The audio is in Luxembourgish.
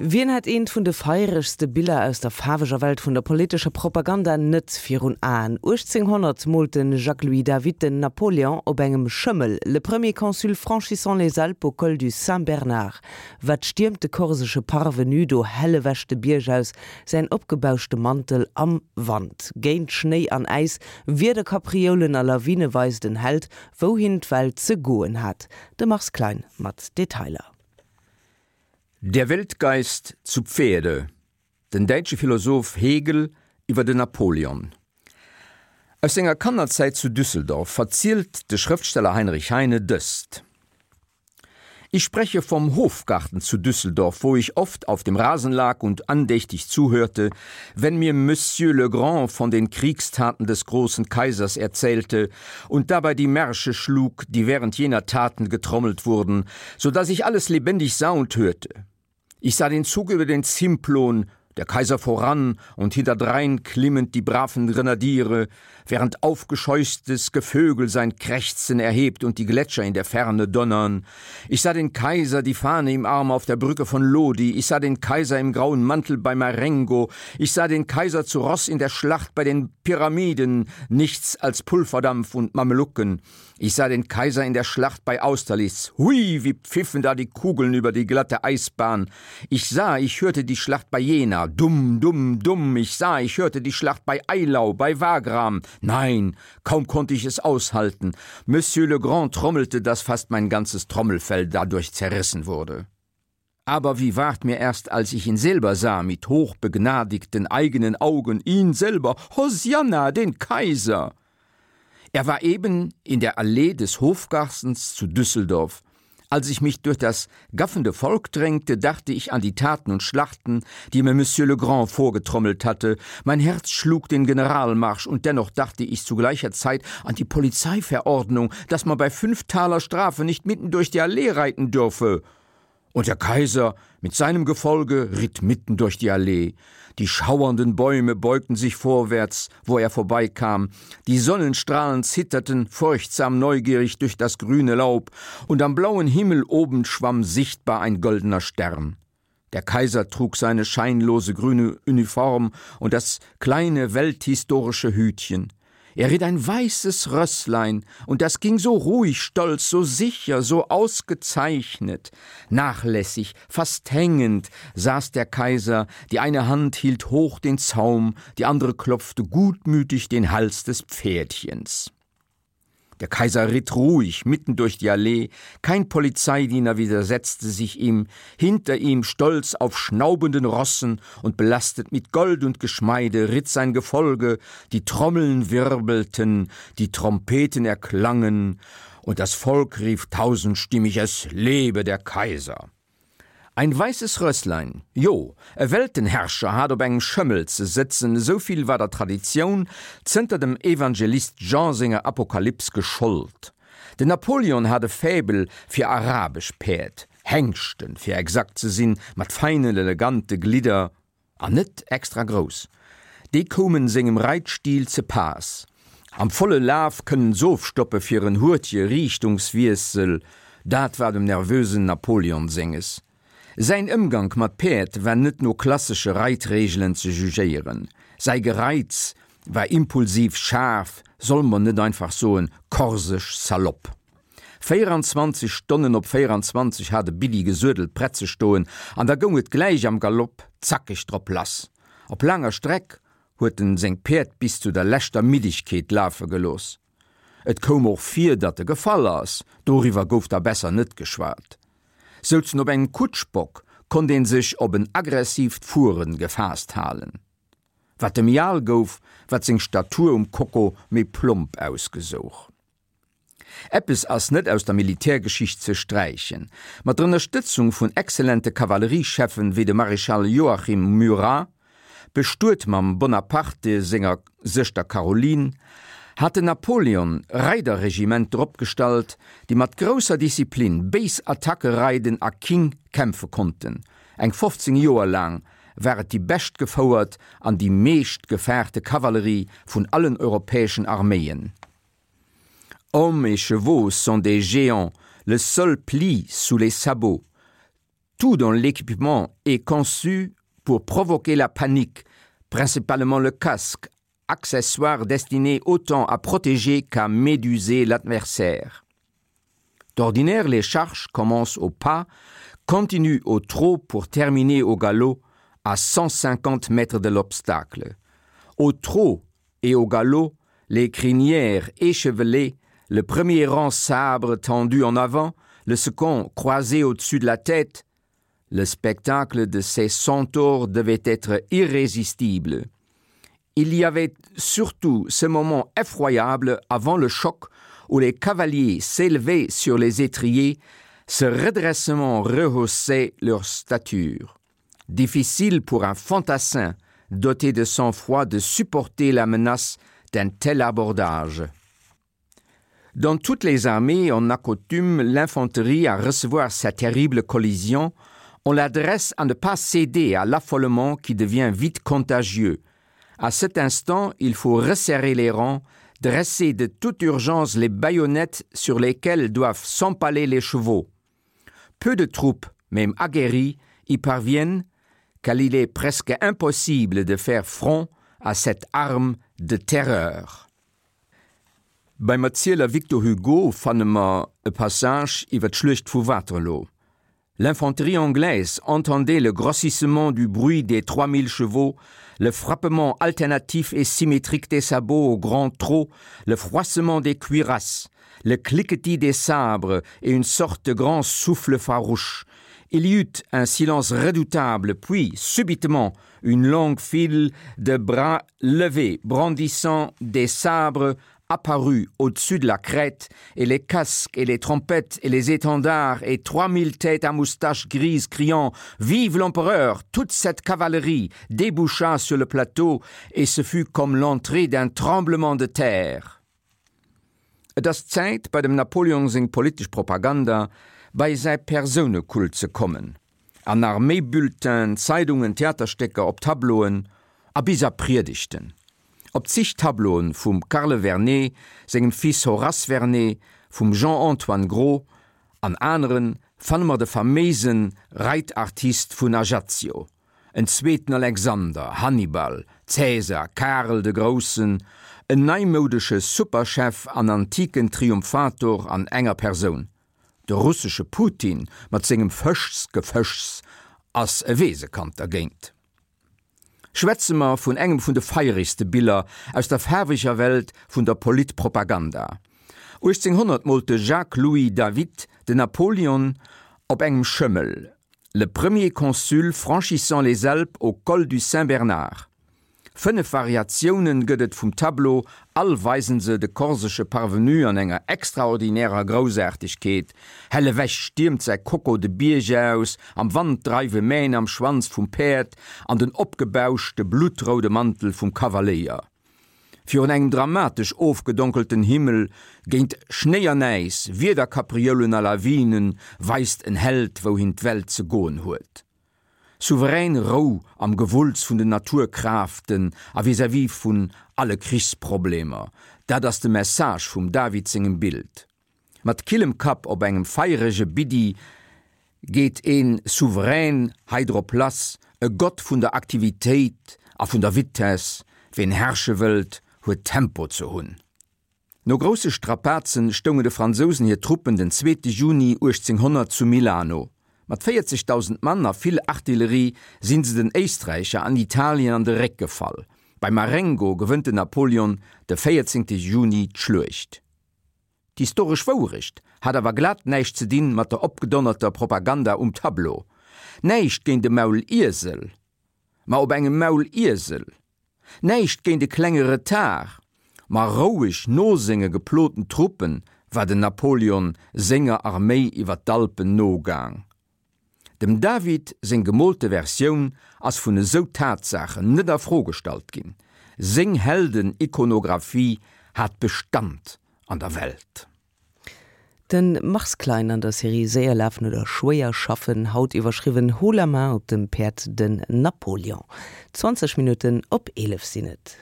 Wien hätt eent vun de feieregste Biller aus der faarweger Welt vun der politescher Propaganda net virun Aen? 1800 moolt de Jacques-Louis David den Napoléon op engem Schëmmel, Le premier consul franchissant les Alpes au col du Saint-Bernard. Wat stiermt de korsesche Parvenu do hell ewech de Bierg aus, säin opgebauschte Mantel am Wand. Géint Schnéi an Äis, Wiederkaprioulen a Lawine weist en Held, wouhin d'Welt ze goen hat. De Mars Klein mat Detailer. Der Weltgeist zu Pferde, Den däitsche Philosoph Hegel iwwer den Napoleon. Aus senger Kannerzäit zu Düsseldorf verzielt de Schrëftsteller Heinrich Heine dëst, Ich spreche vom Hofgarten zu Düsseldorf, wo ich oft auf dem Rasen lag und andächtig zuhörte, wenn mir Monsieur le Grand von den Kriegstaten des großen Kaisers erzählte und dabei die Märsche schlug, die während jener Taten getrommelt wurden, so dass ich alles lebendig sah und hörte. Ich sah den Zug über den Simplon, der Kaiser voran und hinterdrein klimmend die braven Grenadiere, während aufgescheuchtes Gevögel sein Krächzen erhebt und die Gletscher in der Ferne donnern. Ich sah den Kaiser die Fahne im Arm auf der Brücke von Lodi, ich sah den Kaiser im grauen Mantel bei Marengo, ich sah den Kaiser zu Ross in der Schlacht bei den Pyramiden, nichts als Pulverdampf und Mamelucken. Ich sah den Kaiser in der Schlacht bei Austerlitz. Hui, wie pfiffen da die Kugeln über die glatte Eisbahn. Ich sah, ich hörte die Schlacht bei Jena. Dumm, dumm, dumm. Ich sah, ich hörte die Schlacht bei Eylau, bei Wagram. Nein, kaum konnte ich es aushalten. Monsieur le Grand trommelte, dass fast mein ganzes Trommelfell dadurch zerrissen wurde. Aber wie ward mir erst, als ich ihn selber sah, mit hochbegnadigten eigenen Augen, ihn selber, Hosianna, den Kaiser! Er war eben in der Allee des Hofgartens zu Düsseldorf. Als ich mich durch das gaffende Volk drängte, dachte ich an die Taten und Schlachten, die mir Monsieur le Grand vorgetrommelt hatte. Mein Herz schlug den Generalmarsch und dennoch dachte ich zu gleicher Zeit an die Polizeiverordnung, dass man bei fünf Taler Strafe nicht mitten durch die Allee reiten dürfe. Und der Kaiser mit seinem Gefolge ritt mitten durch die Allee. Die schauernden Bäume beugten sich vorwärts, wo er vorbeikam. Die Sonnenstrahlen zitterten furchtsam neugierig durch das grüne Laub, und am blauen Himmel oben schwamm sichtbar ein goldener Stern. Der Kaiser trug seine scheinlose grüne Uniform und das kleine welthistorische Hütchen. Er ritt ein weißes Rösslein, und das ging so ruhig, stolz, so sicher, so ausgezeichnet. Nachlässig, fast hängend saß der Kaiser, die eine Hand hielt hoch den Zaum, die andere klopfte gutmütig den Hals des Pferdchens. Der Kaiser ritt ruhig mitten durch die Allee, kein Polizeidiener widersetzte sich ihm, hinter ihm, stolz auf schnaubenden Rossen und belastet mit Gold und Geschmeide, ritt sein Gefolge, die Trommeln wirbelten, die Trompeten erklangen, und das Volk rief tausendstimmig Es lebe der Kaiser! Ein weisses Rösslein, jo, e Weltenherrscher hat op engem Schëmmel ze sëtzen, esou vill war der Traditioun zënter dem Evangelist Jean senger Apokalyps geschollt. Den Napoleon hat e Faible fir arabesch Päerd, Hengschten, fir exakt ze sinn, mat feinen, elegante Glidder. An net extra grouss. Déi koumen sengem Reitstil ze paass. Am volle Laf kënnen s'ofstoppe fir en hurtje Riichtungswiessel, dat war dem nervösen Napoleon senges. Säin Ëmgank mat Päerd war net no klassesche Reitregelen ze jugéieren. Säi Gereits war impulsiv, schaarf, solle mer net einfach soen, korsesch salopp. 24 Stonnen op 24 hat e Billy gesuedelt prett ze stoen an da goung et gläich am Galopp zackeg drop lass. Op laanger Streck huet en seng Päerd bis zu der leschter Middegkeet lafe gelooss. Et koum och vir, datt e gefall ass, doriwwer gouf da besser net geschwat. Souz en op engem Kutschbock, konnt een sech op en aggressiivt Fueren gefaasst halen. Wat e méi al gouf, wat seng Statur um Koko méi plomp ausgesouch. Eppes ass net aus der Militärgeschicht ze sträichen, Mat der Ënnerstëtzung vun exzellente Kavalleriescheffen wéi dem Maréchal Joachim Murat, bestuet mam Bonaparte senger Sëschter Caroline, hat den Napoleon Reiderregimenter opgestallt, déi mat grousser Disziplin béis Attacke reiden a king kämpfe konnten. Eng 15 Joer laang war et déi bescht gefouert an déi meescht gefaarte Kavallerie vun allen europäeschen Arméien. Hommes et chevaux sont des géants, le sol plie sous les sabots. Tout dans l'équipement est conçu pour provoquer la panique, principalement le casque, accessoire destiné autant à protéger qu'à méduser l'adversaire. D'ordinaire, les charges commencent au pas, continuent au trot pour terminer au galop à 150 mètres de l'obstacle. Au trot et au galop, les crinières échevelées, le premier rang sabre tendu en avant, le second croisé au-dessus de la tête, le spectacle de ces centaures devait être irrésistible. Il y avait surtout ce moment effroyable avant le choc où les cavaliers s'élevaient sur les étriers, ce redressement rehaussait leur stature. Difficile pour un fantassin doté de sang-froid de supporter la menace d'un tel abordage. Dans toutes les armées, on accoutume l'infanterie à recevoir sa terrible collision, on l'adresse à ne pas céder à l'affolement qui devient vite contagieux. À cet instant, il faut resserrer les rangs, dresser de toute urgence les baïonnettes sur lesquelles doivent s'empaler les chevaux. Peu de troupes, même aguerries, y parviennent, car il est presque impossible de faire front à cette arme de terreur. Beim Erzieler Victor Hugo fanne mer e Passage iwwer d'Schluecht vu Waterloo. L'infanterie anglaise entendait le grossissement du bruit des 3000 chevaux, le frappement alternatif et symétrique des sabots au grand trot, le froissement des cuirasses, le cliquetis des sabres et une sorte de grand souffle farouche. Il y eut un silence redoutable, puis, subitement, une longue file de bras levés, brandissant des sabres, apparut au-dessus de la crête, et les casques et les trompettes et les étendards et 3000 têtes à moustaches grises criant Vive l'empereur! Toute cette cavalerie déboucha sur le plateau et ce fut comme l'entrée d'un tremblement de terre. Et ass Zäit, bei dem Napoleon seng politesch Propaganda bei säi Persounekult ze kommen. An Arméibulletinen, Zeidungen, Theaterstécker, op Tableauen a bis a Priedegten. Op zig Tableauen vum Carle Vernet, sengem Fils Horace Vernet, vum Jean-Antoine Gros an aneren fanne mer de faméise Reitartist vun Ajaccio, en zweeten Alexander, Hannibal, Cäsar, Karel de Groussen, en neimoudesche Superchef an antiken Triumphator an enger Persoun. De russesche Putin mat sengem Fëschsgefëschs ass e Weesekand dergéint. Schwätze mer vun engem vun de feieregste Biller aus der faarweger Welt vun der Politpropaganda. 1800 moolt de Jacques-Louis David den Napoleon op engem Schëmmel, Le premier consul franchissant les Alpes au col du Saint-Bernard. Fënnef Variatiounen gëtt et vum Tableau, all weisen se de korsesche Parvenu an enger extraordinärer Groussaartegkeet. Hell ewech stiermt säi Koko de Bierg aus, am Wand dreiwe Mähn am Schwanz vum Päerd an den opgebauschte bluttroude Mantel vum Kavaléier. Virun engem dramatesch ofgedonkelten Himmel, géint Schnéi an Äis, Wiederkaprioulen a Lawinen, weist en Held wouhin d'Welt ze goen huet. Souverän Rou am Gewulls vun den Naturkraaften a vis-à-vis vun alle Krichsproblemer, dat ass de Message vum David sengem Bild. Mat killem Kapp op engem feierege Biddi geet een Souverän hei drop lass, e Gott vun der Aktivitéit a vun der Vitess, ween herrsche wëllt, huet Tempo ze hunn. No grousse Strapazen stoungen de Fransousen hir Truppen den zweete Juni 1800 zu Milano. Mat 40.000 Mann a vill Artillerie sinn se den Éisträicher an Italien an de Réck gefall. Bei Marengo gewënnt den Napoleon de 14 Juni d'Schluecht. D'historesch Wourecht hat awer glat näischt ze dinn mat der opgedonnerter Propaganda um Tableau. Näischt géint e Mauliesel, ma op engem Mauliesel. Näischt géint e klenge Retard, ma roueg no senge geploten Truppen war den Napoleon senger Arméi iwwer d'Alpen nogaang. Dem David seng gemoolte Versioun ass vun esou Tatsaachen net a Fro gestallt ginn, seng Helden-Ikonographie hat Bestand an der Welt. De Mars Klein an der Serie Séier lafen oder schwéier schaffen, haut iwwerschriwwen Haut la main op dem Päerd den Napoleon. 20 Minutten op 11 sinn et.